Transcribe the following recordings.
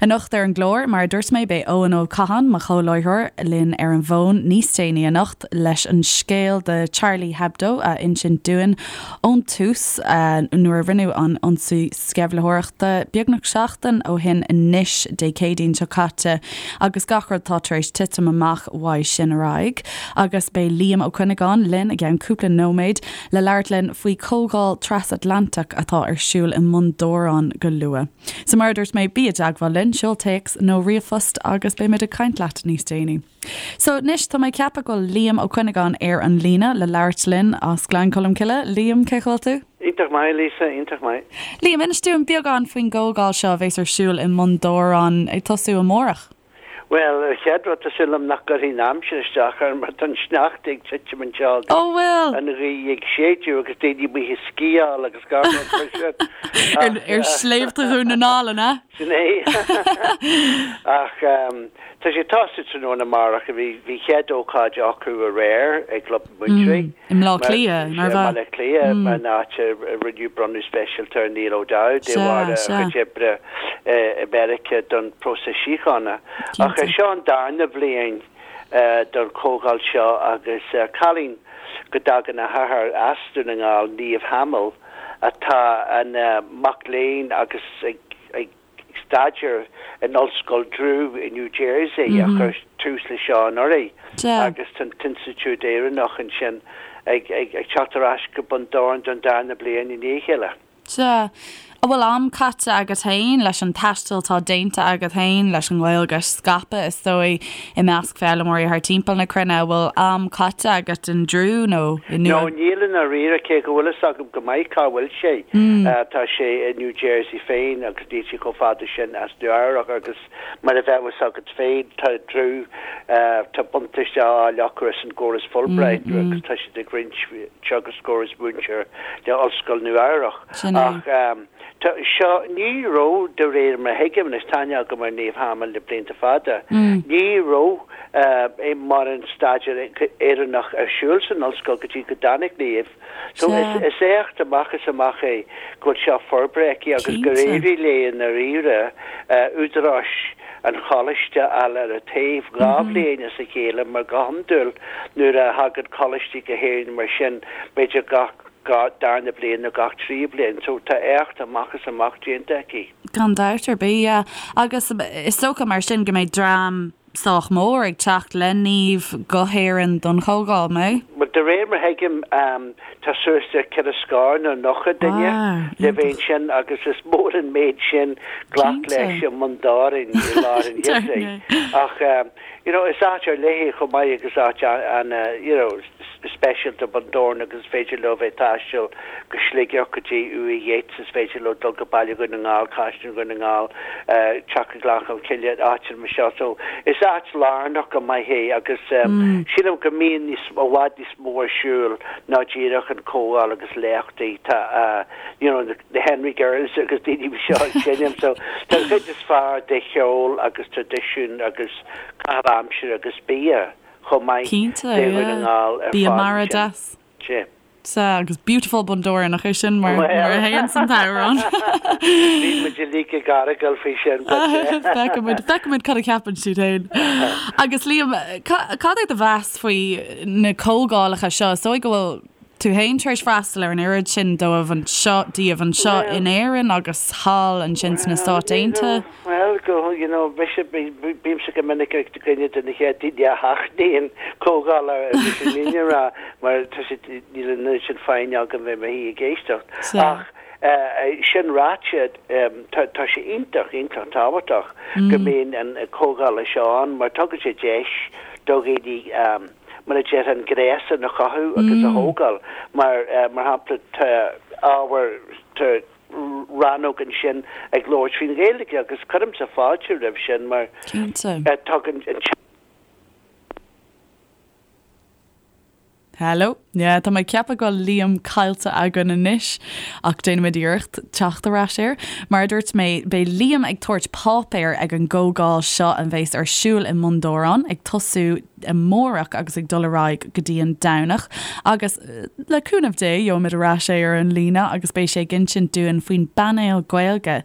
Anocht ar an gclár, mar a dúirt mé, beidh Eoin Ó Catháin, mo chomhláithreoir, linn ar an bhfón níos déanaí anocht leis an scéal de Charlie Hebdo a insint dúinn ón tús, nuair a rinneadh an ionsaí sceimhlitheoireachta beagnach seachtain ó shin anois, Dé Céadaoin seo caite, agus gach rud atá tar éis titim amach uaidh sin ar aghaidh. Agus beidh Liam Ó Cuinneagáin linn i gceann cúpla nóiméad le labhairt linn faoi chomhdháil trasatlantach atá ar siúl i mBun Dobhráin go luath. So mar a dúirt mé, bí i dteagmháil linn, seol téacs nó ríomhphost agus beimid ag caint leat níos déanaí. So anois tá mé ag ceapadh go bhfuil Liam Ó Cuinneagáin ar an líne le labhairt linn as Gleann Cholm Cille. Liam, cén chaoi a bhfuil tú? Iontach maith, Lisa, iontach maith. Liam, inis dúinn beagán faoin gcomhdháil seo a bheas ar siúl i mBun Dobhráin ag tosú amárach. Bhuel, an chéad rud, tá súil agam nach gcuirfidh an aimsir isteach orm mar tá an sneachta ag titim anseo agus Ó bhfuil? an ghaoth ag séideadh agus daoine amuigh ag sciáil agus gach rud mar sin. Ach, Ar shléibhte Dhún na nGall, an ea? Sin é. Ach tá sé ag tosú tráthnóna amárach. Bhí bhí chéad ócáid acu aréir i gClub na Múinteoirí. I mBleá Cliath, nár bhea? I mBaile Átha Cliath, an áit a rinneadh bronnadh speisialta ar Niall O'Dowd de bharr a chuid oibre i Meiriceá don próiseas síochána. Ach seo an darna bhliain don chomhdháil seo agus cailín go dtagann a hathair as Dún na nGall, Niamh Hamill, atá ina mac léinn agus ag staidéar in Ollscoil Drew i New Jersey a chuir tús leis seo anuraidh agus tá an tInstitiúid Éireannach ansin ag teacht ar ais go Bun Dobhráin don darna bliain i ndiaidh a chéile. Sea. An bhfuil am caite agat féin leis an taisteal atá déanta agat féin leis an nGaeilge a scaipeadh, is dóigh, i measc foghlaimeoirí thar timpeall na cruinne? An bhfuil am caite agat in Drew nó i Nua. No, níl i ndáiríre, cé go bhfuil fhios agam go maith cá bhfuil sé. Tá sé i New Jersey féin agus níl sé chomh fada sin as Nua Eabhrac agus mar a bheadh fhios agat féin, tá Drew, tá buntáiste á fháil acu as an gcóras Fulbright agus tá siad ag roinnt teagascóir is múinteoir le Ollscoil Nua Eabhrach. Ach tá seo, ní raibh, de réir mar a thuigim, anois tá aithne agam ar Niamh Hamill le blianta fada, ní raibh mórán staidéar Éireannach ar siúl san ollscoil go dtí go dtáinig Niamh. So is éacht amach is amach é go bhfuil seo forbartha aici agus gur éirigh léi i ndáiríre údaráis an choláiste a fháil ar a taobh 2 bhliain as a chéile mar go hiondúil nuair a thagann coláistí go hÉirinn mar sin b'fhéidir gach darna bliain nó gach tríú bliain so tá éacht amach is amach déanta aici. Gan dabht ar bith, yeah. Agus is dócha mar sin go mbeidh dream sách mór ag teacht le Niamh go hÉirinn don chomhdháil, mbeidh? Bhuel, de réir mar a thuigim, tá suas le ceithre scór nó 90 duine le bheith ansin agus is mór an méid sin glac leis i mBun Dobhráin i lár an gheimhridh. Ach, you know, is áit ar leith é chomh maith agus áit an, you know, speisialta Bun Dobhráin agus is féidir leo bheith ag taisteal go Sligeach go dtí Uaimh Yeats, is féidir leo dul go Baile Dhún na nGall, Caisleán Dhún na nGall, teacht go Gleann Cholm Cille, áiteanna mar seo. So is áit lárnach go maith é agus sílim go mbíonn níos, i bhfad níos mó ar siúl ná díreach an comhdháil agus léachtaí. Tá you know the Henry Girls agus daoine mar seo ag seinm so tá an chuid is fearr de cheol agus traidisiún agus caitheamh aimsire agus bia. chomh maith Cinnte, de Dhún na yeah. nGall ar Bia fad mara ansin. deas. Sea. Sea, agus Beautiful Bundoran, nach é sin mar, Well, mar a théann san t-amhrán? bhí muid uilig ag argáil faoi sin, but yeah. Feicfidh muid, feicfidh muid cad a cheapann siad féin. Agus Liam, ca, cad é do mheas faoi na comhdhálacha seo? Is dóigh go bhfuil tú féin tar éis freastal ar an oiread sin dóibh anseo, díobh anseo in Éirinn agus thall ansin sna Stáit Aontaithe. Bhuel, go, you know, mise, bímse go minic ar dhuine de na chéad daoine a sheachnaíonn comhdháil ar mise an fhírinne a rá, mar tá sé, níl an oiread sin foighne agam bheith i mo shuí ag éisteacht. Ach sin ráite, tá, tá sé iontach, iontach tábhachtach go mbíonn an comhdhála seo ann mar tugann sé deis do dhaoine, mar a déarfá, an gréasán a chothú agus a thógáil. Mar, mar shampla, tá ábhar, tá rannóg ansin ag labhairt faoin Ghaeilge agus cuirimse fáilte roimh sin mar Cinnte. tugann an. Hello. Yeah, tá mé ag ceapadh go bhfuil Liam caillte againn anois, ach déanfaimid iarracht teacht ar ais air. Mar a dúirt mé, beidh Liam ag tabhairt páipéir ag an gcomhdháil seo a bheas ar siúl i mBun Dobhráin, ag tosú amárach agus ag dul ar aghaidh go dtí an Domhnach. Agus, le cúnamh Dé, gheobhaimid ar ais é ar an líne agus beidh sé ag insint dúinn faoin bpainéal Gaeilge.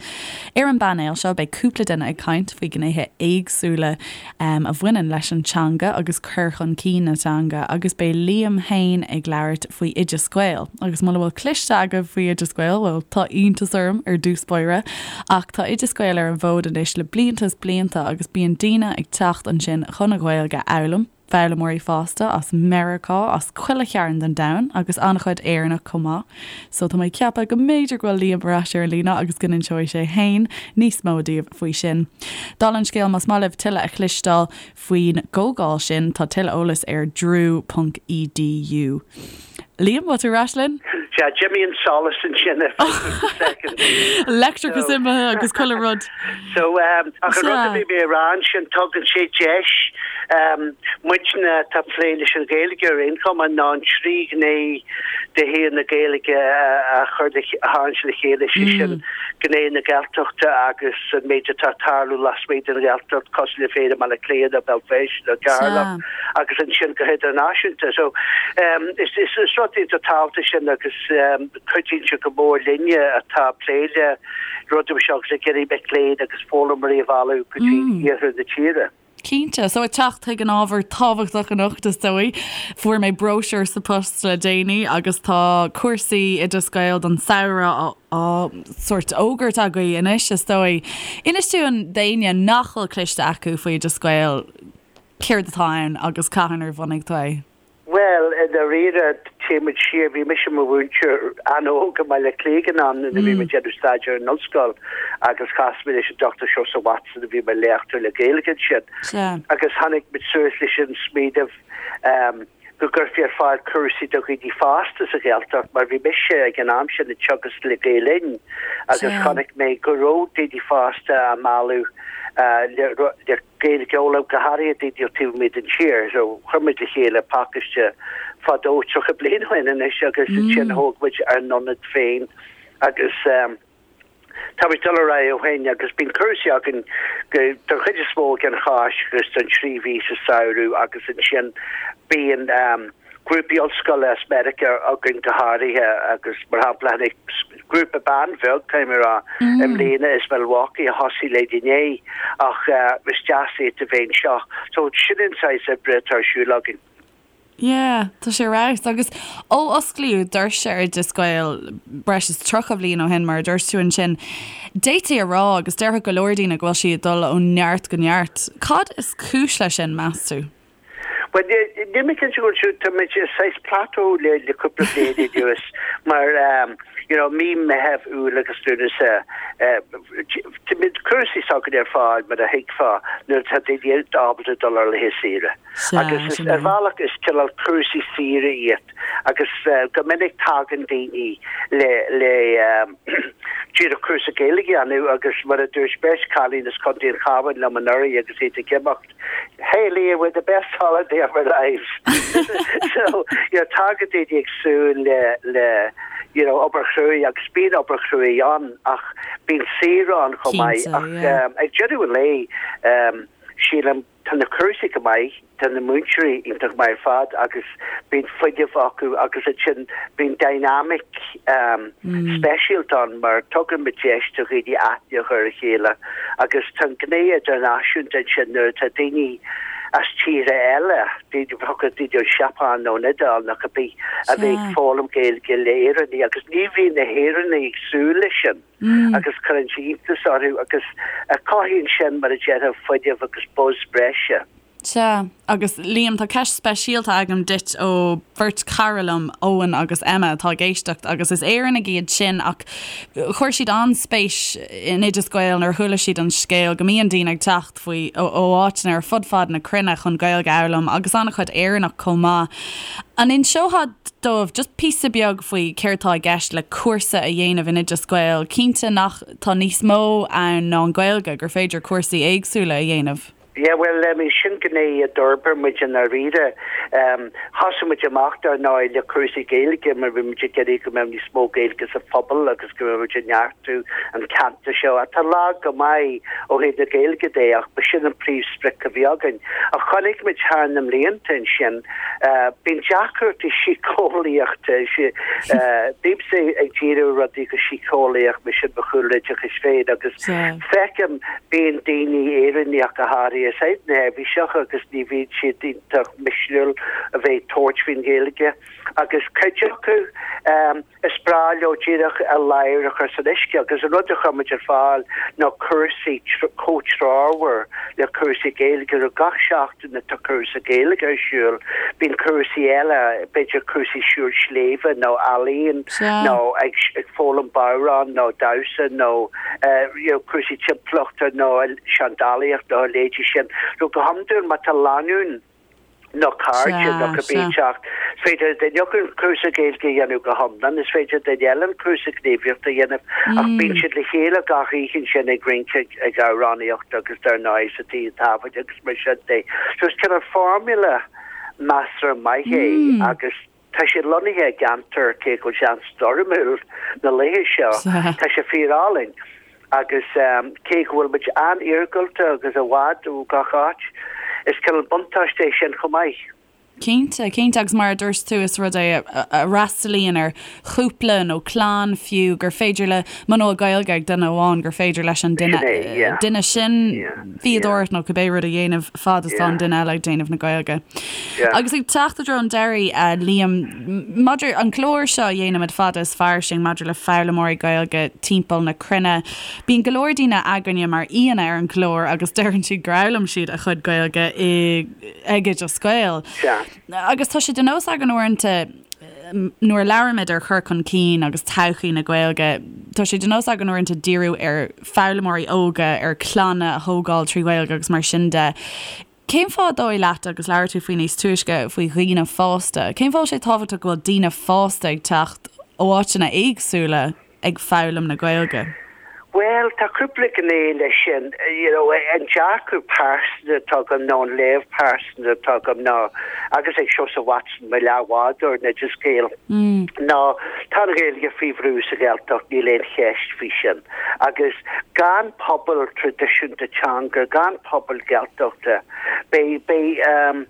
Ar an bpainéal seo, beidh cúpla duine ag caint faoi ghnéithe éagsúla a bhaineann leis an teanga agus cur chun cinn na teanga agus beidh Liam féin ag labhairt faoi Oideas Gael. Agus muna bhfuil cloiste agaibh faoi Oideas Gael, bhuel, tá iontas orm ar dtús báire, ach tá Oideas Gael ar an bhfód anois le blianta is blianta agus bíonn daoine ag teacht ansin chun an Ghaeilge a fhoghlaim, foghlaimeoirí fásta as Meiriceá, as chuile chearn den domhan agus an-chuid Éireannach chomh maith. So tá mé ag ceapadh go mb'fhéidir go bhfuil Liam ar ais ar an líne agus go n-inseoidh sé fhéin níos mó daoibh faoi sin. Dála an scéil, más maith libh tuilleadh a chloisteáil faoin gcomhdháil sin, tá tuilleadh eolais ar drew ponc edu. Liam, bhfuil tú ar ais linn? Sea, d'imigh an solas ansin ar feadh cúpla soicind. Leictreachas imithe agus chuile rud. So, ach an rud a bhí mé a rá ansin, tugann sé deis muidne atá ag plé leis an Ghaeilge ar aon chuma ná an trí ghné de shaol na Gaeilge a chur a tharraingt le chéile, sé sin gné na Gaeltachta agus an méid atá ag tarlú lasmuigh den Ghaeltacht cosúil le Féile Bhaile Átha Cliath nó Béal Feirste nó Ceatharlach agus ansin go hidirnáisiúnta. So is is rud iontach tábhachtach sin agus cuidíonn sé go mór linne atá ag plé le rudaí mar seo agus ag iarraidh mic léinn agus foghlaimeoirí a mhealladh go dtí iarthar na tíre. Cinnte. So ag teacht chuig an ábhar tábhachtach anocht is dóigh. Fuair mé bróisiúr sa post le déanaí agus tá cúrsaí Oideas Gael don samhradh á sórt fhógairt agaibh anois is dóigh. Inis dúinn d'éinne nach bhfuil cloiste acu faoi Oideas Gael céard atá ann agus cathain ar bhunaigh tú é? Bhuel, i ndáiríre, téann muid siar, bhí mise i mo mhúinteoir an-óg i mBaile Átha Cliath ag an am nuair a bhí mé ag déanamh staidéir in ollscoil agus chas mé leis an Dr Seosamh Watson a bhí mar léachtóir le Gaeilge ansin agus tháinig muid suas leis an smaoineamh go gcuirfí ar fáil cúrsaí do dhaoine fásta sa Ghaeltacht mar bhí mise ag an am sin ag teagasc le Gael Linn agus chonaic mé go raibh daoine fásta á mealladh le Gaeilge a fhoghlaim, go háirithe daoine ó taobh amuigh den tír. So chuir muid le chéile pacáiste fadó, 30 bliain ó shin anois agus ansin thóg muid ár n-ionad féin agus tá muid ag dul ar aghaidh ó shin agus bíonn cúrsaí againn go, don chuid is mó ag an Cháisc agus don trí mhí sa samhradh agus ansin bíonn grúpaí ollscoile as Meiriceá againn go háirithe agus mar shampla tháinig grúpa ban bheag, caithfidh mé a rá, i mbliana as Milwaukee a thosaigh le inné ach is deas iad a bheith anseo. So sin an saghas oibre atá ar siúl againn. Yeah, tá sé ar fheabhas. Agus ó osclaíodh doirse Oideas Gael breis is 30 bhliain ó shin, mar a dúirt tú ansin, d'fhéadfaí a rá agus déarfadh go leor daoine go bhfuil sí ag dul ó neart go neart. Cad is cúis leis sin, meas tú? Bhuel, níl mé cinnte go bhfuil siúd, tá muid i saghas plateau le le cúpla bliain anuas mar you know mí Meitheamh, Iúil agus Lúnasa tá muid cúrsaí s'againn ar fáil mar a thuigfeá nuair atá daoine ábalta dul ar laethe saoire. Agus is ar bhealach is cineál cúrsaí saoire iad agus go minic tagann daoine le le díreach cúrsa Gaeilge a dhéanamh agus mar a dúirt beirt cailín as Contae an Chabháin liom anuraidh agus iad ag imeacht, Hey Liam, we had the best holiday of our lives. so, you know, tagann daoine ag súil le, le, you know, obair chruaidh agus bíonn obair chruaidh ann ach bíonn saoire ann chomh maith. Ach um, ag deireadh an lae, um, sílim tá na cúrsaí go maith, tá na múinteoirí iontach maith ar fad agus bíonn fuinneamh acu agus ansin bíonn dynamic um, speisialta ann mar tugann muid deis do dhaoine aithne a chur ar a chéile agus tá an gné idirnáisiúnta ansin nuair atá daoine as tíortha eile, daoine daoine ón Seapáin nó an Iodáil nó cibé a bheith ag foghlaim Gaeilge le Éireannaigh agus ní bhíonn na hÉireannaigh ag súil leis sin agus cuireann sé iontas orthu agus cothaíonn sin mar a déarfá fuinneamh agus buzz breise. Sea, agus Liam, tá ceist speisialta agam duit ó bheirt chara liom, Eoin agus Emma, atá ag éisteacht agus is Éireannaigh iad sin ach chuir siad an-spéis in Oideas Gael nuair a chuala siad an scéal go mbíonn daoine ag teacht faoi ó áiteanna ar fud fad na cruinne chun Gaeilge a fhoghlaim agus an-chuid Éireannach chomh maith. An inseofá dóibh just píosa beag faoi céard tá i gceist le cúrsa a dhéanamh in Oideas Gael? Cinnte nach tá níos mó ann ná an Ghaeilge, gur féidir cúrsaí éagsúla a dhéanamh. Yeah, bhuel, I mean, sin gné a d'fhorbair muid i ndáiríre. Thosaigh muid amach, dar ndóigh, le cúrsaí Gaeilge mar bhí muid ag iarraidh go mbeadh níos mó Gaeilge sa phobal agus go mbeadh muid ag neartú an ceantar seo, atá lag go maith ó thaobh na Gaeilge de, ach ba sin an príomhsprioc a bhí againn. Ach chonaic muid thar na mblianta ansin, bíonn deacrachtaí síceolaíochta, bímse ag díriú ar rudaí go síceolaíoch, mar sin mo chúlra oideachais féin agus feicim, Bíonn daoine Éireannacha go háirithe saghas neirbhíseach agus ní bhíonn siad iontach misniúil a bheith ag tabhairt faoin Ghaeilge agus cuid acu is breá leo díreach a ladhar a chur san uisce agus an rud a chuir muid ar fáil ná cúrsaí comhthreomhar le cúrsaí Gaeilge ar gach seachtain atá cúrsa Gaeilge ar siúl bíonn cúrsaí eile b'fhéidir cúrsaí siúl sléibhe nó ealaíon nó ag foghlaim bodhrán nó damhsa nó you know, cúrsaí timpeallachta nó seandálaíocht nó a leithéidí sin. So go hiondúil má tá lánúin nó cairde nó cibé ag teacht, is féidir le duine acu an cúrsa Gaeilge a dhéanamh go hiomlán, is féidir le duine eile an cúrsa gníomhaíochta a dhéanamh ach bíonn siad le chéile gach oíche ansin ag rince, ag amhránaíocht agus dar ndóigh sa tigh tábhairne agus mar sin de. So is cineál formula measartha maith é agus Tá sé lonnaithe i gceantar, cé go bhfuil sé an-stoirmiúil na laethe seo, tá sé fíor-álainn agus cé go bhfuil muid an-iargúlta agus i bhfad ó gach áit, is cineál buntáiste é sin chomh maith. Cinnte, cinnte agus mar a dúirt tú is rud é a fhreastalaíonn ar chúpla nó clann fiú gur féidir le muna bhfuil Gaeilge ag duine amháin gur féidir leis an duine duine sin fíodóireacht nó cibé rud a dhéanamh fad is tá an duine eile ag déanamh na Gaeilge. Agus ag teacht i dtreo an deiridh, a Liam, maidir an clár seo a dhéanaimid fada is fairsing maidir le foghlaimeoirí Gaeilge timpeall na cruinne, bíonn go leor daoine againne mar aíonna ar an gclár agus deireann siad gur fhoghlaim siad a chuid Gaeilge i ag Oideas Gael. Agus tá sé de nós againn uaireanta nuair a labhraímid ar chur chun cinn agus todhchaí na Gaeilge, tá sé de nós againn uaireanta díriú ar foghlaimeoirí óga, ar clanna a thógáil trí Ghaeilge agus mar sin de. Cén fáth an dóigh leat, agus labhair tú faoi níos túisce, faoi dhaoine fásta, cén fáth bhfuil sé tábhachtach go bhfuil daoine fásta ag teacht ó áiteanna éagsúla ag foghlaim na Gaeilge? Bhuel, tá cúpla gné leis sin. You know, an dearcadh pearsanta atá agam nó an léamh pearsanta atá agam ná, agus ag Seosamh Watson, mo leathbhádóir in Oideas Gael, ná tá an Ghaeilge faoi bhrú sa Ghaeltacht, níl aon cheist faoi sin. Agus gan pobal traidisiúnta teanga, gan pobal Gaeltachta, beidh, beidh,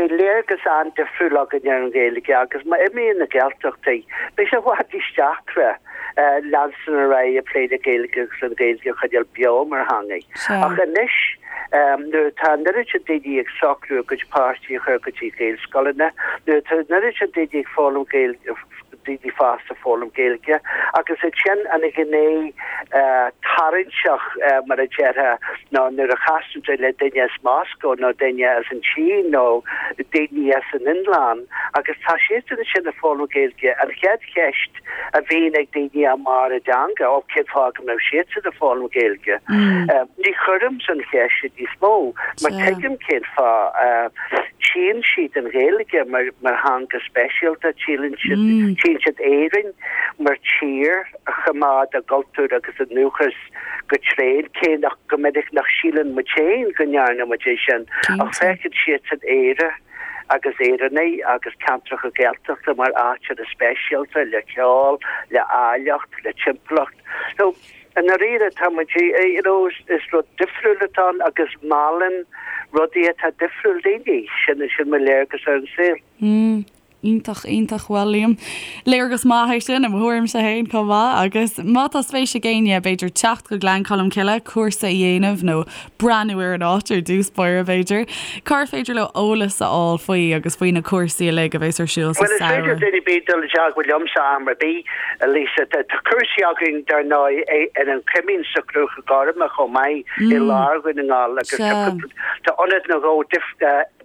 beidh léargas an-difriúil againn ar an Ghaeilge agus má imíonn na Gaeltachtaí, beidh sé i bhfad níos deacra leanstan ar aghaidh ag plé le Gaeilge agus an Ghaeilge a choinneáil beo mar theanga. Ach anois, nuair atá an oiread sin daoine ag socrú a gcuid páistí a chur go dtí Gaelscoileanna, nuair atá an oiread sin daoine ag foghlaim Gaeilge, daoine fásta ag foghlaim Gaeilge agus ansin an ghné tarraingteach mar a déarfá ná nuair a chasann tú le duine as Moscó nó duine as an tSín nó daoine as an Fhionlainn agus tá siadsan ansin ag foghlaim Gaeilge an chéad cheist a bhíonn ag daoine i mbarr a dteanga ó cén fáth go mbeadh siadsan ag foghlaim Gaeilge? Ní chuirimse an cheist sin níos mó mar tuigim cén fáth. Tchíonn siad an Ghaeilge mar theanga speisialta, tchíonn siad Éirinn mar tír a choimeád a gcultúr agus a ndúchas go tréan, cé nach go minic nach síleann muid féin go ndearna muid é sin, ach feiceann siadsan Éire agus Éireannaigh agus ceantracha Gaeltachta mar áiteanna speisialta le ceol, le áilleacht, le timpeallacht. So, I ndáiríre, tá muid, you know, is rud difriúil atá ann agus meallann rudaí atá difriúil daoine. Sin, sin mo léargas ar an saol. Mm, iontach, iontach. Bhuel, Liam, léargas maith é sin i mo thuairimse féin chomh maith agus má tá spéis ag éinne, b'fhéidir teacht go Gleann Cholm Cille, cúrsa a dhéanamh nó breathnú ar an áit ar dtús báire, b'fhéidir. Cár féidir leo eolas a fháil faoi agus faoi na cúrsaí uilig a bheas ar siúl sa Bhuel, is féidir samhradh? duine ar bith dul i dteagmháil liomsa am ar bith, a Lisa. Tá cúrsaí againn, dar ndóigh, ar an Choimín sa Chrúca Gorma chomh maith i lár Dhún na nGall agus tá ionad nó dhó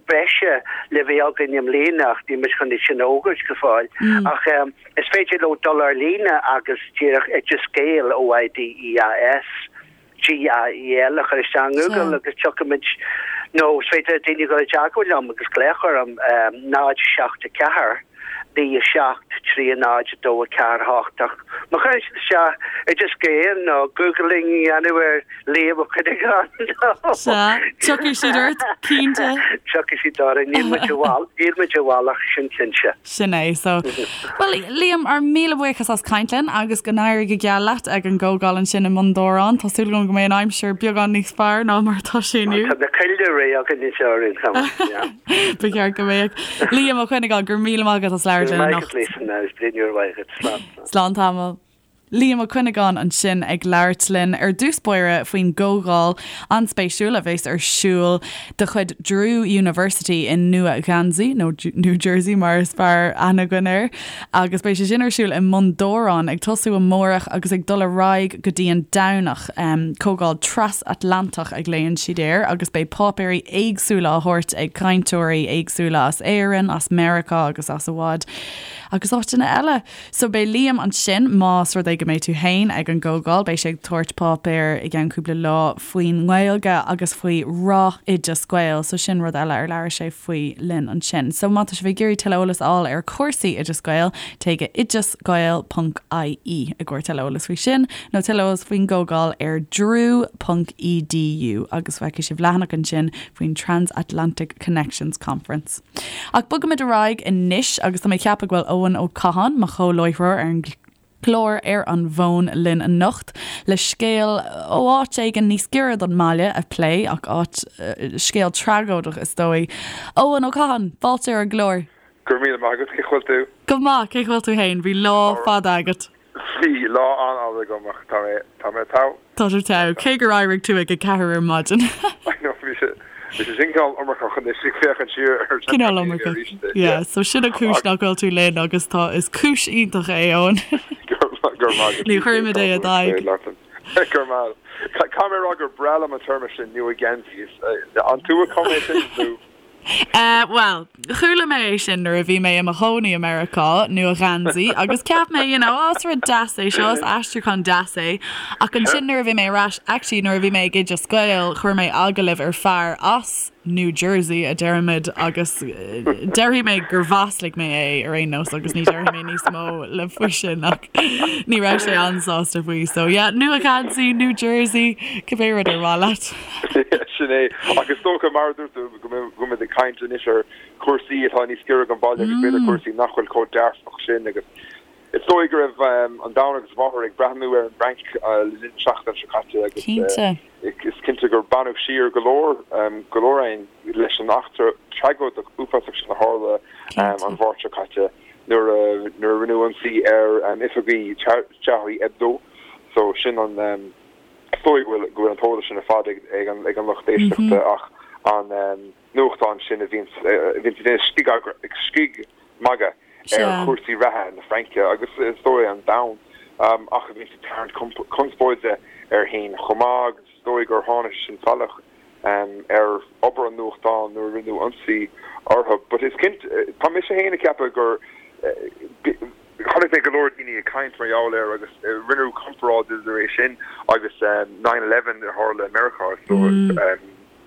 breise le bheith againn i mbliana ach níl muid chun é sin a fhógairt go fóill. Ach is féidir leo dul ar líne agus díreach Oideas Gael, O-I-D-E-A-S, GAEL a chur isteach i nGoogle agus tiocfaimid nó is féidir le daoine dul i dteagmháil liom agus glaoch orm 0 7 4. 9 7 3 0 2 4 8 ach má chuireann siad isteach Oideas Gael nó Googling a dhéanamh ar Liam Ó Cuinneagáin nó Sea, tiocfaidh siad ort, cinnte. Tiocfaidh siad orainn, níl muid i bhfal, níl muid i bhfolach, sin cinnte. Sin é, so. Bhuel, Liam, ár míle buíochas as caint linn agus go n-éirí go geal leat ag an gcomhdháil ansin i mBun Dobhráin. Tá súil agam go mbeidh an aimsir beagán níos fearr ná mar atá sé inniu. Tá na coillte réidh againn anseo ar aon chuma, yeah. Ba cheart go mbeadh. Liam Ó Cuinneagáin, go raibh míle maith agat as labhairt linn anocht. Go raibh maith agat, Lisa, agus bliain úr mhaith agat. Slán. Slán tamall. Liam Ó Cuinneagáin ansin ag labhairt linn ar dtús báire faoin gcomhdháil an-spéisiúil a bheas ar siúl de chuid Drew University i Nua Gheansaí, nó New Jersey mar is fearr aithne againn air, agus beidh sé sin ar siúl i mBun Dobhráin ag tosú amárach agus ag dul ar aghaidh go dtí an Domhnach. Comhdháil trasatlantach a ghlaonn siad air agus beidh páipéirí éagsúla á thabhairt ag cainteoirí éagsúla as Éirinn, as Meiriceá agus as i bhfad agus áiteanna eile. So beidh Liam ansin más rud é go mbeidh tú fhéin ag an gcomhdháil, beidh sé ag tabhairt páipéir i gceann cúpla lá faoin nGaeilge agus faoi rath Oideas Gael, so sin rud eile ar labhair sé faoi linn ansin. So má tá sibh ag iarraidh tuilleadh eolas a fháil ar chúrsaí Oideas Gael, téigh go oideasgael ponc ie i gcomhair tuilleadh eolas faoi sin, nó tuilleadh eolas faoin gcomhdháil ar drew ponc edu agus feicfidh sibh leathanach ansin faoin Transatlantic Connections Conference. Ach bogaimid ar aghaidh anois agus tá mé ag ceapadh go bhfuil Eoin Ó Catháin, mo chomhláithreoir ar an gclár ar an bhfón linn anocht le scéal ó áit éigin níos giorra don mbaile a phlé ach áit, scéal tragóideach is dóigh. Eoin Ó Catháin, fáilte ar an gclár. Go raibh míle maith agat, cén chaoi a bhfuil tú? Go maith, cén chaoi a bhfuil tú fhéin? Bhí lá fada agat. Bhí lá an-fhada agam ach tá mé, tá mé togha. Tá tú togha, cé gur éirigh tú ag a ceathair ar maidin. I know, bhí sé, bhí sé sin cineál iomarcach anois ag féachaint siar ar Cineál iomarcach, yeah. So sin an cúis nach bhfuil tú linn agus tá, is cúis iontach é, Eoin. Go raibh maith agat. Ní chuirfimid é i d'aghaidh. Go raibh maith. Caithfidh mé a rá gur breá liom an téarma sin, Nua-Gheansaí. An tú a chum é sin nó? Eh, bhuel, chuala mé é sin nuair a bhí mé i mo chónaí i Meiriceá, Nua-Gheansaí, agus cheap mé, you know, oh, is rud deas é seo, is aistriúchán deas é. Ach ansin nuair a bhí mé ar ais, actually nuair a bhí mé ag Oideas Gael, chuir mé agallamh ar fear as New Jersey, a deirimid, agus déarfaidh mé gur mhaslaigh mé é ar aon nós agus ní déarfaidh mé níos mó le faoi sin ach ní raibh sé an-sásta faoi. So yeah, Nua-Gheansaí, New Jersey, cibé rud ar mhaith leat. Sin é. Ach is dócha, mar a dúirt tú, go mbeimid ag caint anois ar chúrsaí atá níos giorra don bhaile agus b'fhéidir cúrsaí nach bhfuil chomh dearfach sin agus is dóigh go raibh an domhan agus a mháthair ag breathnú ar an bhFrainc le linn na seachtaine seo caite agus is cinnte gur baineadh siar go leor go leor againn leis an eachtra tragóideach uafásach sin a tharla an Mháirt seo caite nuair a nuair a rinneadh ionsaí ar oifigí Charlie Hebdo so sin an Is dóigh go bhfuil go bhfuil an t-eolas sin ar fad ag ag an ag an lucht éisteachta ach an nuachtán sin a bhíonns a bhíonns ag déanamh scig scigmhagadh ar chúrsaí reatha na Fraince agus is dóigh an domhan ach a bhíonns ag tarraingt conspóide air féin chomh maith agus is dóigh gur tháinig sé sin salach ar obair an nuachtáin nuair a rinneadh ionsaí orthu. But is cinnte, tá mise féin ag ceapadh gur chonaic mé go leor daoine ag caint mar gheall air agus rinneadh comparáid idir é sin agus nine eleven a tharla i Meiriceá so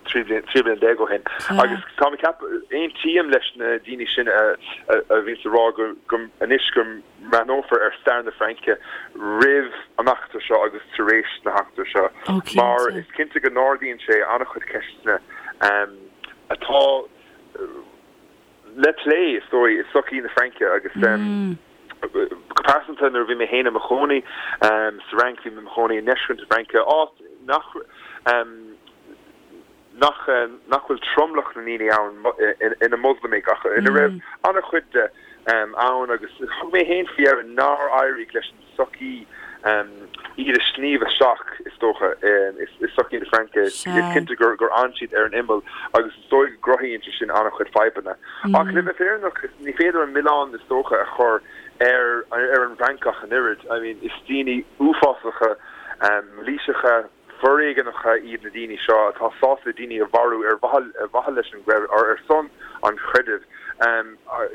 13 bliain ó shin. Agus tá mé ag ceapadh, aontaím leis na daoine sin a bhíonns ag rá go anois go mbreathnófar ar stair na Fraince roimh an eachtra seo agus tar éis na heachtra seo mar is cinnte go n-ardaíonn sé an-chuid ceisteanna atá le plé, is dóigh, i sochaí na Fraince agus go pearsanta nuair a bhí mé féin i mo chónaí sa Fhrainc, bhí mé i mo chónaí i ndeisceart na Fraince, áit nach. nach nach bhfuil tromlach na ndaoine ann ina Moslamaigh ach ina raibh an-chuid de ann agus thug mé féin faoi deara nár éirigh leis an tsochaí iad a shníomh isteach, is dócha, i sochaí na Fraince. Is cinnte gur fhan siad ar an imeall agus is dóigh go gcruthaíonn sé sin an-chuid fadhbanna. Ach le bheith fírinneach, ní féidir an milleán, is dócha, a chur ar ar an bhFrancach an oiread. I mean, is daoine uafásacha, mailíseacha, foréigeanacha iad na daoine seo atá sásta daoine a mharú ar mhaithe leis an gcreideamh, ar son an chreidimh.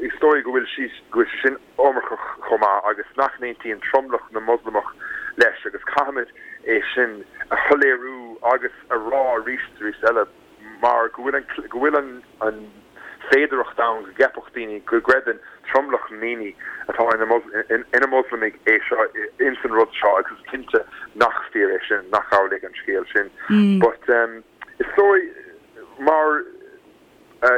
Is dóigh go bhfuil sé go bhfuil sé sin iomarcach chomh maith agus nach n-aontaíonn tromlach na Moslamach leis agus caithfimid é sin a shoiléiriú agus a rá arís is arís eile mar go bhfuil an go bhfuil an an. féidearthacht ann go gceapfadh daoine go gcreideann tromlach na ndaoine atá ina Moslamaigh é seo ins an rud seo agus is cinnte nach fíor é sin, nach amhlaidh an scéal sin. But is dóigh mar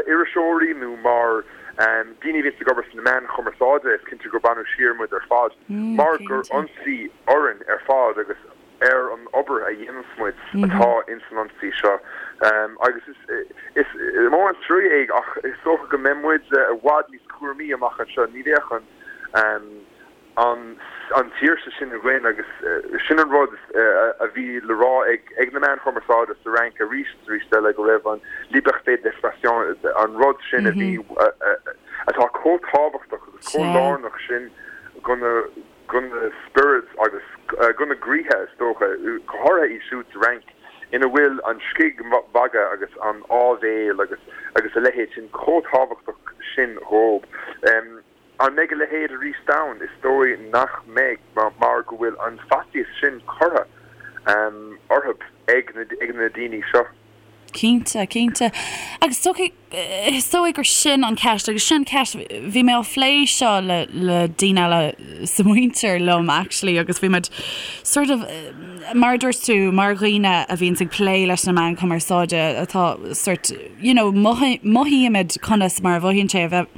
iriseoirí nó mar daoine a bhíonns ag obair sna meáin chumarsáide is cinnte gur baineadh siar muid ar fad mar gur ionsaí orainn ar fad agus ar an obair a dhéananns muid atá ins an ionsaí seo agus is mór an trua é ach is dócha go mbeidh muid i bhfad níos cúramaí amach anseo. Ní bheadh an an tsaoirse sin againn agus sin an rud a bhí le rá ag na meáin chumarsáide sa Fhrainc arís is arís eile go raibh an liberté d'expression an rud sin a bhí atá chomh tábhachtach agus chomh lárnach sin go na go na spioraid agus go na gcroíthe, is dócha, go háirithe iad siúd sa Fhrainc ina bhfuil an scigmhagadh agus an áibhéil agus agus a leithéid sin chomh tábhachtach sin dhóibh. An mbeidh a leithéid arís ann? Is dóigh nach mbeidh mar go bhfuil an faitíos sin curtha orthu ag na daoine seo. Cinnte, cinnte. Agus is dóigh gur sin an ceist, agus sin ceist, bhí mé á phlé seo le le daoine eile sa mhuintir liom actually agus bhí muid sort of mar a dúirt tú, mar dhaoine a bhíonns ag plé leis na meáin chumarsáide atá sort you know mothaímid conas mar a mhothaíonn sé a bheith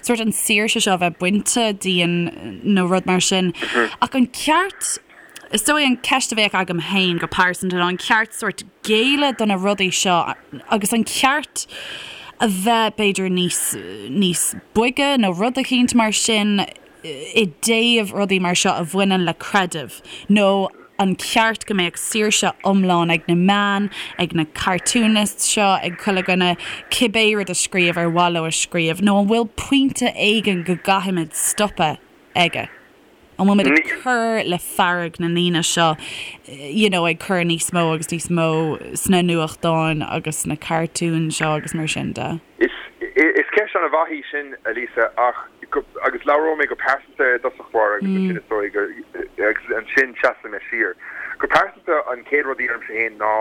sort an saoirse seo a bheith bainte dínn nó rud mar sin. Ach an ceart Is dóigh an ceist a bheadh agam féin go pearsanta ná an ceart sórt géilleadh do na rudaí seo agus an ceart a bheith b'fhéidir níos níos boige nó rud eicínt mar sin i dtaobh rudaí mar seo a bhaineann le creideamh nó an ceart go mbeadh saoirse iomlán ag na meáin, ag na cartoonists seo, ag chuile dhuine cibé rud a scríobh ar mhaith leo a scríobh nó an bhfuil pointe éigin go gcaithfimid stopadh aige? An bhfuil muid ag cur le fearg na ndaoine seo, you know, ag cur níos mó agus níos mó sna nuachtáin agus sna cartúin seo agus mar sin de? Is ceist an-mhaith í sin, a Lisa, ach, agus labhróidh mé go pearsanta i dtosach báire agus ansin is dóigh gur, agus ansin seasfaidh mé siar. Go pearsanta, an chéad rud a deirimse féin ná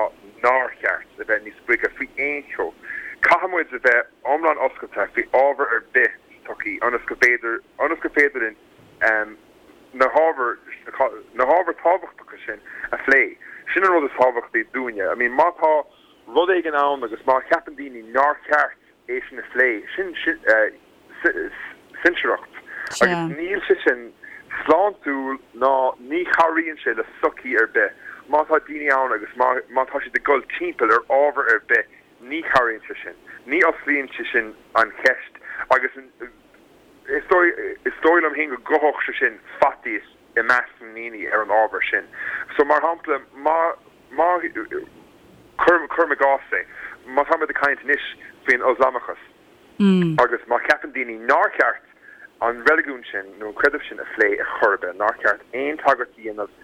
nár cheart a bheith níos boige faoi aon cheo. Caithfidh muid a bheith iomlán oscailte faoi ábhar ar bith sa tsochaí ionas go bhféidir, ionas gur féidir linn na hábhair, na hábhair tábhachtacha sin a phlé. Sin an rud is tábhachtaí dúinne. I mean, má tá rud éigin ann agus má cheapann daoine nár cheart é sin a phlé, sin cinsireacht agus níl sé sin sláintiúil ná ní chabhraíonn sé le sochaí ar bith. Má tá daoine ann agus má má tá siad ag dul timpeall ar ábhar ar bith, ní chabhraíonn sé sin. Ní osclaíonn sé sin an cheist agus Is dóigh, is dóigh liom féin go gcothódh sé sin faitíos i measc na ndaoine ar an ábhar sin. So, mar shampla, má, má, cuirim, cuirim i gcás é, má táimid ag caint anois faoin Ioslamachas agus má cheapann daoine nár cheart an reiligiún sin nó an creideamh sin a phlé ar chor ar bith, nár cheart aon tagairt a dhéanamh,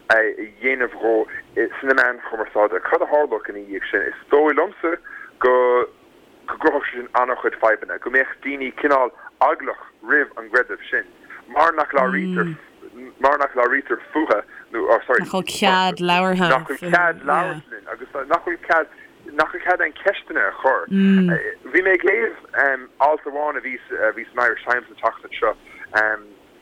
a dhéanamh dhó sna meáin chumarsáide, cad a tharlódh ina dhiaidh sin? Is dóigh liomsa go. go gcruthódh sé sin an-chuid fadhbanna, go mbeadh daoine cineál eaglach roimh an gcreideamh sin, mar nach labhraítear, mar nach labhraítear fúthu, nó, oh sorry, Nach bhfuil cead labhartha nach bhfuil cead labhairt linn agus nach bhfuil cead, nach bhfuil cead aon cheisteanna a chur. Bhí mé ag léamh alt amháin a bhí, a bhí san Irish Times an tseachtain seo,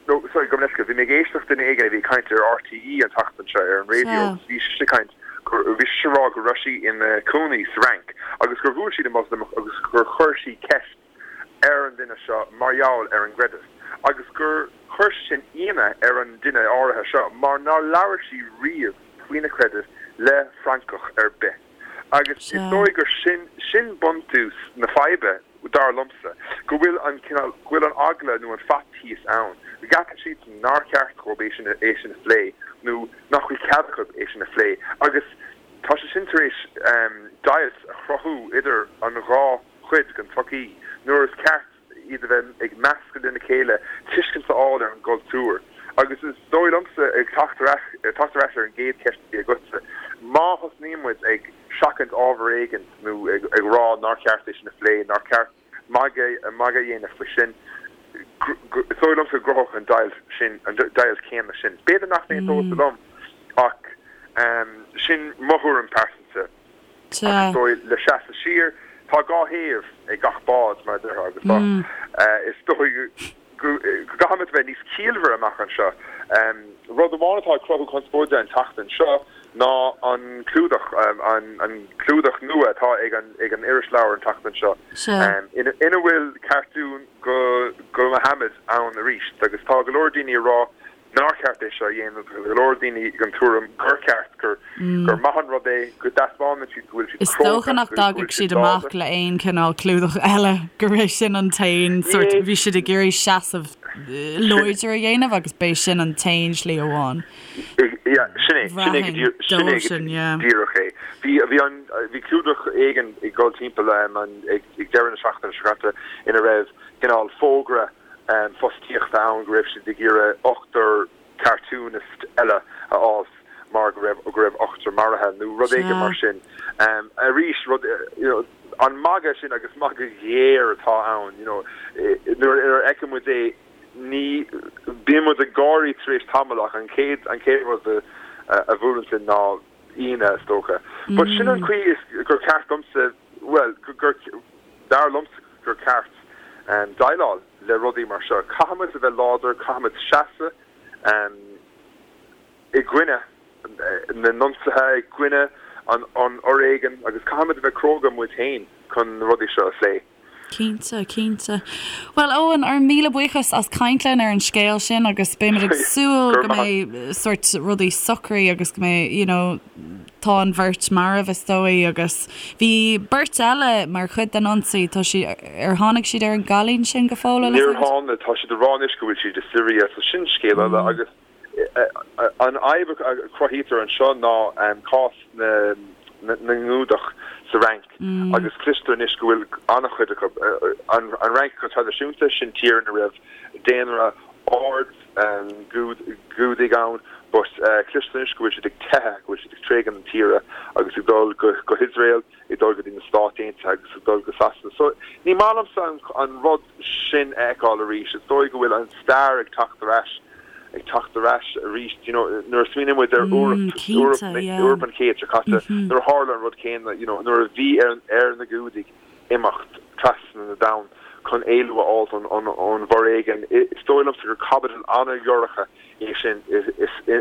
No, sorry, gabh mo leithscéal, bhí mé ag éisteacht duine éigin a bhí ag caint ar RTÉ an tseachtain seo ar an raidió agus bhí sise ag caint, bhí sise ag rá go raibh sí ina cónaí sa Fhrainc agus gur bhuail sí le Moslamach agus gur chuir sí ceist ar an duine seo mar gheall ar an gcreideamh agus gur chuir sé sin ionadh ar an duine áirithe seo mar nár labhair sí riamh faoina creideamh le Francach ar bith agus is dóigh gur sin, sin buntús na faidhbe. dar liomsa, go bhfuil an cineál, go bhfuil an eagla nó an faitíos ann, go gceapann siadsan nár cheart dhóibh é sin, é sin a phlé nó nach bhfuil cead acu é sin a phlé agus tá sé sin tar éis deighilt a chruthú idir an dhá chuid den tsochaí nuair is ceart iad a bheith ag meascadh lena chéile, tuiscint a fháil ar an gcultúr. Agus is dóigh liomsa, ag teacht ar ais, teacht ar ais ar an gcéad cheist a bhí agatsa, má thosnaíonn muid ag. seachaint ábhar éigin nó ag rá nár cheart é sin a phlé, nár cheart magadh a dhéanamh faoi sin, is dóigh liomsa go gcruthódh an deighilt sin, an deighilt chéanna sin. B'fhéidir nach n-aontófá liom ach sin mo thuairim pearsanta. Ach is dóigh le seasamh siar. Tá 2 thaobh ag gach bád, mar a déarfá, agus tá, is dóigh go gcaithfimid a bheith níos ciallmhaire amach anseo. Rud amháin atá ag cruthú conspóide an tseachtain seo ná an clúdach, an clúdach nua atá ag an ag an irisleabhar an tseachtain seo, ina bhfuil cartún go Mohammed ann arís agus tá go leor daoine ag rá nár cheart é seo a dhéanamh. Tá go leor daoine den tuairim gur ceart, gur gur maith an rud é, go dtaispeánann siad go bhfuil siad Is dócha cróga, nach go bhfuil dtagadh siad siad amach láidir. le aon chineál clúdach eile, gurb é sin an t-aon sort, Ní bhí siad ag iarraidh seasamh sin, láidir a dhéanamh agus b'é sin an t-aon slí amháin. yeah, sin é, sin é go Bhraithfinn dír, sin é dóibh go sin, yeah. díreach é. Bhí, bhí an, bhí clúdach éigin ag dul timpeall an, ag, ag deireadh na seachtaine seo caite ina raibh cineál fógra fostaíochta ann go raibh siad ag iarraidh ochtar cartoonist eile a fháil mar go raibh go raibh ochtar maraithe nó rud éigin mar sin. Arís rud you know an magadh sin agus magadh géar atá ann you know nuair a fheiceann muid é ní bíonn muid ag gáirí tar éis tamaill ach an chéad an chéad rud a a bhuaileann sinn ná ionadh is dócha. But sin an chaoi is gur ceart domsa bhuel gur dar liomsa gur ceart déileáil le rudaí mar seo. Caithfimid a bheith láidir, caithfimid seasamh i gcoinne na n-ionsaithe, i gcoinne an fhoréigin agus caithfimid a bheith cróga muid féin chun na rudaí seo a phlé. Cinnte, cinnte. Bhuel, Eoin, ár míle buíochas as caint linn ar an scéal sin agus beimid ag súil go mbeidh sort rudaí socraithe agus go mbeidh, you know, tá an bheirt marbh is dóigh agus bhí beirt eile mar chuid den ionsaí, tá siad, ar tháinig siad ar an gcailín sin go fóill, an Níor tháinig, tá siad ag rá anois go bhfuil siad i Siria, so sin scéal eile agus An fhadhb a chruthaítear anseo ná cás na nGiúdach sa Fhrainc agus cloistear anois go bhfuil an-chuid acu, an Fhrainc go traidisiúnta, sin tír ina raibh daonra ard Giúdaigh ann but cloistear anois go bhfuil siad ag teitheadh, go bhfuil siad ag tréigean na tíre agus ag dul go hIosrael. ag dul go dtí na Stáit Aontaithe agus ag dul go Sasana. So, ní maith liomsa an rud sin a fheiceáil arís. Is dóigh go bhfuil an stair ag teacht ar ais, ag teacht ar ais arís. You know, nuair a smaoiníonn muid ar Eoraip, Eoraip, Eoraip an chéid seo caite, nuair a tharla an rud céanna, you know, nuair a bhí ar, ar na Giúdaigh imeacht trasna na domhan chun éalú a fháilt ón bhforéigean. Is dóigh liomsa gur caibidil an-dhorcha é sin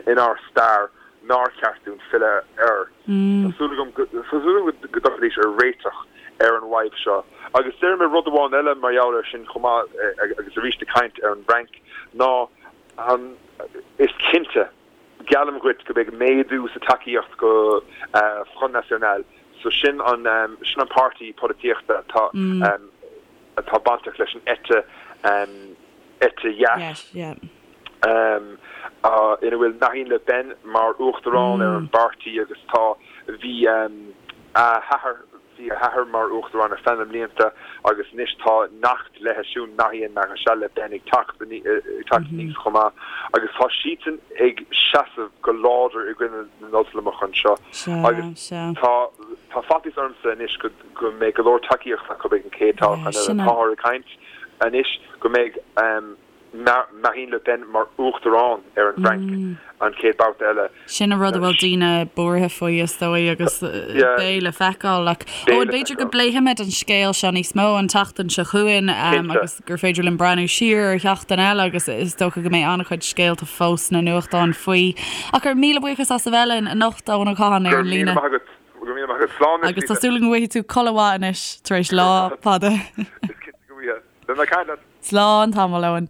inár stair. nár cheart dúinn filleadh air. Tá súil agam go dtiocfaidís ar réiteach ar an bhfadhb seo. Agus déarfaidh mé rud amháin eile mar gheall air sin chomh maith, agus arís ag caint ar an bhFrainc, ná an, is cinnte, geallaim dhuit go mbeidh méadú sa tacaíocht go Front National, so sin an, sin an páirtí polaitíochta atá, atá bainteach leis an eite, eite dheas. Ina bhfuil Marine Le Pen mar uachtarán ar an bpáirtí agus tá, bhí a hathair, bhí a hathair mar uachtarán ar feadh na mblianta agus anois tá neacht léi siúd, Marion Maréchal Le Pen ag teacht, ag teacht aníos chomh maith agus tá siadsan ag seasamh go láidir i gcoinne na nIoslamach anseo agus tá, tá faitíos ormsa anois go, go mbeidh go leor tacaíocht acu ag an chéad toghchán eile. Táthar ag caint anois go mbeidh. Marine Le Pen mar uachtarán ar an bhFrainc an chéad babhta eile. Sin an rud a bhfuil daoine buartha faoi, is dóigh, agus beidh le feiceáil. Ach Eoin, b'fhéidir go bpléifimid an scéal seo níos mó an tseachtain seo chugainn agus gur féidir linn breathnú siar ar sheachtain eile agus is dócha go mbeidh an-chuid scéalta fós sna nuachtáin faoi. Ach ár míle buíochas as a bheith linn anocht, Eoin Ó Catháin, ar an líne. Go raibh míle maith agat. Go raibh míle maith agat. Slán anois, Agus tá súil agam go bhfaighidh tú codladh mhaith anois tar éis lá fada. Is cinnte go bhfaighidh. Beidh mé ag caint leat. Slán tamall, Eoin.